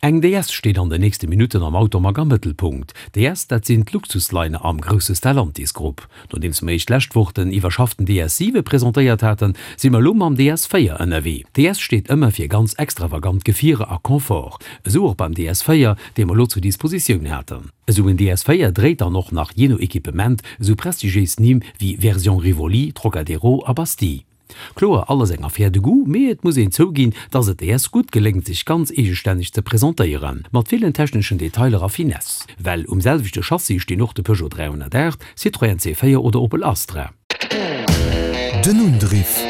Eng DS steet an den nächste Minutten am Automag am Mëttelpunkt. DS, dat sinn d'Luxusliner am grousse Stellantis Grupp. Nodeems mer iech d'lescht Woch den iwwerschafften DS 7 presentéiert haten, si mer elo mam DS 4 ënnerwee. DS steet ëmmer fir ganz extravagant Gefierer a Confort. Esou och beim DS 4, dee mer elo zur Dispositioun haten. Esou en DS 4 dréit dann och nach jee no Equipement esou prestigiéis Nimm wéi Version Rivoli, Trocadero a Bastille. Kloer, alles eng Affaire de goût, mee et muss een zouginn, dass et DS gutt geléngt sech ganz eegestänneg ze presentéieren, mat villen techneschen Detailer a Finesse. Well um selwechte Chassis stinn och de Peugeot 308, Citroën C4 oder Opel Astra. Den Undriff.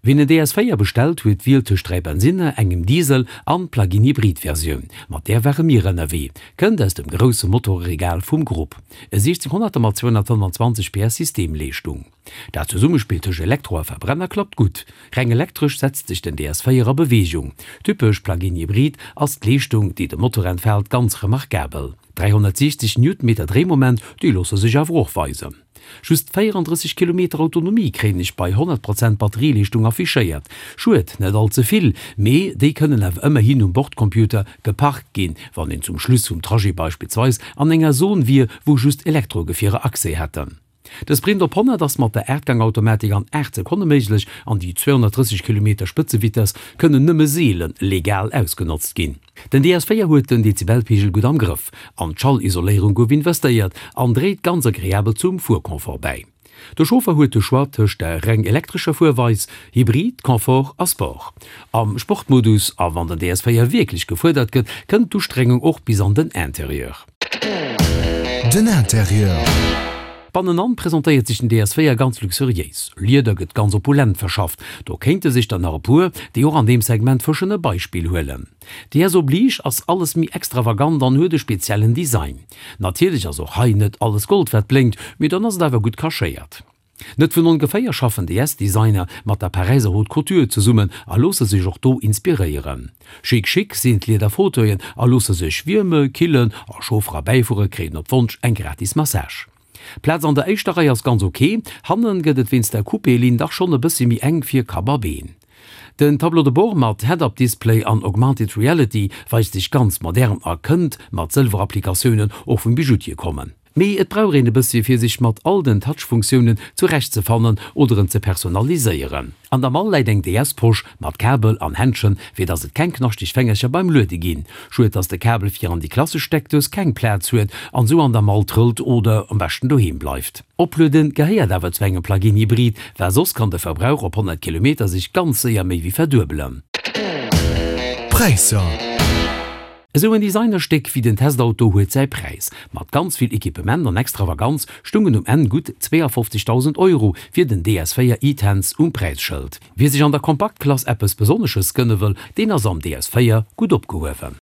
Wien en DS 4 bestellt, huet d'Wiel tëscht 3 Bensinner, engem Diesel an Plug-in-Hybrid-Versioun. Mat där ware mir ënnerwee. Kënnt aus dem grousse Motoreregal vum Grupp. E 1600er mat 225 PS Systemleeschtung. Dat Zesummespill tëscht Elektro a Verbrenner klappt gutt. Reng elektresch setzt sech den DS 4 a Beweegung. Typesch Plug-in-Hybrid ass d'Leeschtung, déi de Motor entfaalt, ganz remarkabel. 360 Newtonmeter Dréimoment, déi loosse sech awer och weisen. Just 34 Kilometer Autonomie kréien ech bei 100 Prozent Batterieleeschtung affichéiert. Schued, net all ze vill, mee déi kënnen awer ëmmerhin um Bordcomputer geparkt ginn, wann een zum Schluss vum Trajet beispillsweis an enger Zon wier, wou just Elektrogefierer Accès hätten. De Sprint op 100 ass mat der Aachtgang-Automatik an 8 Sekonne méiglech an déi 230 Kilometer Spëtzevitess kënnen nëmme seele legal ausgenotzt ginn. Den DS 4 huet den Dezibelpeegel gutt am Grëff, an d'Schallisoléierung gouf investéiert an dréit ganz agreabel zum Fuerconfort bäi. De Chauffer huet de Choix tëscht der reng elektrescher Fuerweis, Hybrid, Confort a Sport. Am Sportmodus, a wann den DS 4 wierklech gefuerdert gëtt, kënnt d'Ustrengung och bis an den Interieur. Den Interieur. Bannenan presentéiert sech den DS4 ganz luxuriéis. Lieder gëtt ganz opulent verschafft, do kéinte sech der nach e puer, déi och an deem Segment fëschen, e Beispill huelen. DS oblige ass alles méi extravagant an huet e speziellen Design. Natierlech ass och hei net alles Gold wat blénkt, mee dann ass et awer gutt cachéiert. Net vun ongeféier schaffen DS-Designer mat der Paräiser Haute Couture zesummen a loosse sech och do inspiréieren. Chic chic sinn d'Lieder Fauteuilen a loosse sech wierme, killen a Chauffer a Bäifuerer kréien op Wonsch eng gratis Massage. D'Plaz an der éischter Rei ass ganz ok, hannen gëtt et wéinst der Coupé-Linn dach schonn e bëssi méi enk fir Kapp a Been. Den Tableau de bord mat Head-Up-Display an Augmented Reality weist sech ganz modern a kënnt mat Sëlwer-Applikatiounen och vum Bijoutier kommen. Mee et brauch een e bëssi fir sech mat all den Touch-Funktiounen zurecht ze fannen oder en ze personaliséieren. An der Mall läit eng DS-Posch mat Kabel an Händschen, fir dass et keng knaschteg Fängercher beim Luede ginn. Schued dass de Kabel fir an déi klassesch Steckdous keng Plaz huet an sou an der Mall trëllt oder am beschten doheem bleift. Oplueden gehéiert awer zu engem Plug-in Hybrid, well soss kann de Verbrauch op 100 Kilometer sech ganz séier méi wéi verduebelen. Präisser. Esou en Designerstéck wéi den Testauto huet säi Präis. Mat ganz vill Equipement an Extravaganz stungen um Enn gutt 52.000 Euro fir den DS4 e-Tense um Präisschëld. Wie sech an der Kompaktklass eppes Besonnesches gënne wëll, deen ass am DS4 gutt opgehuewen.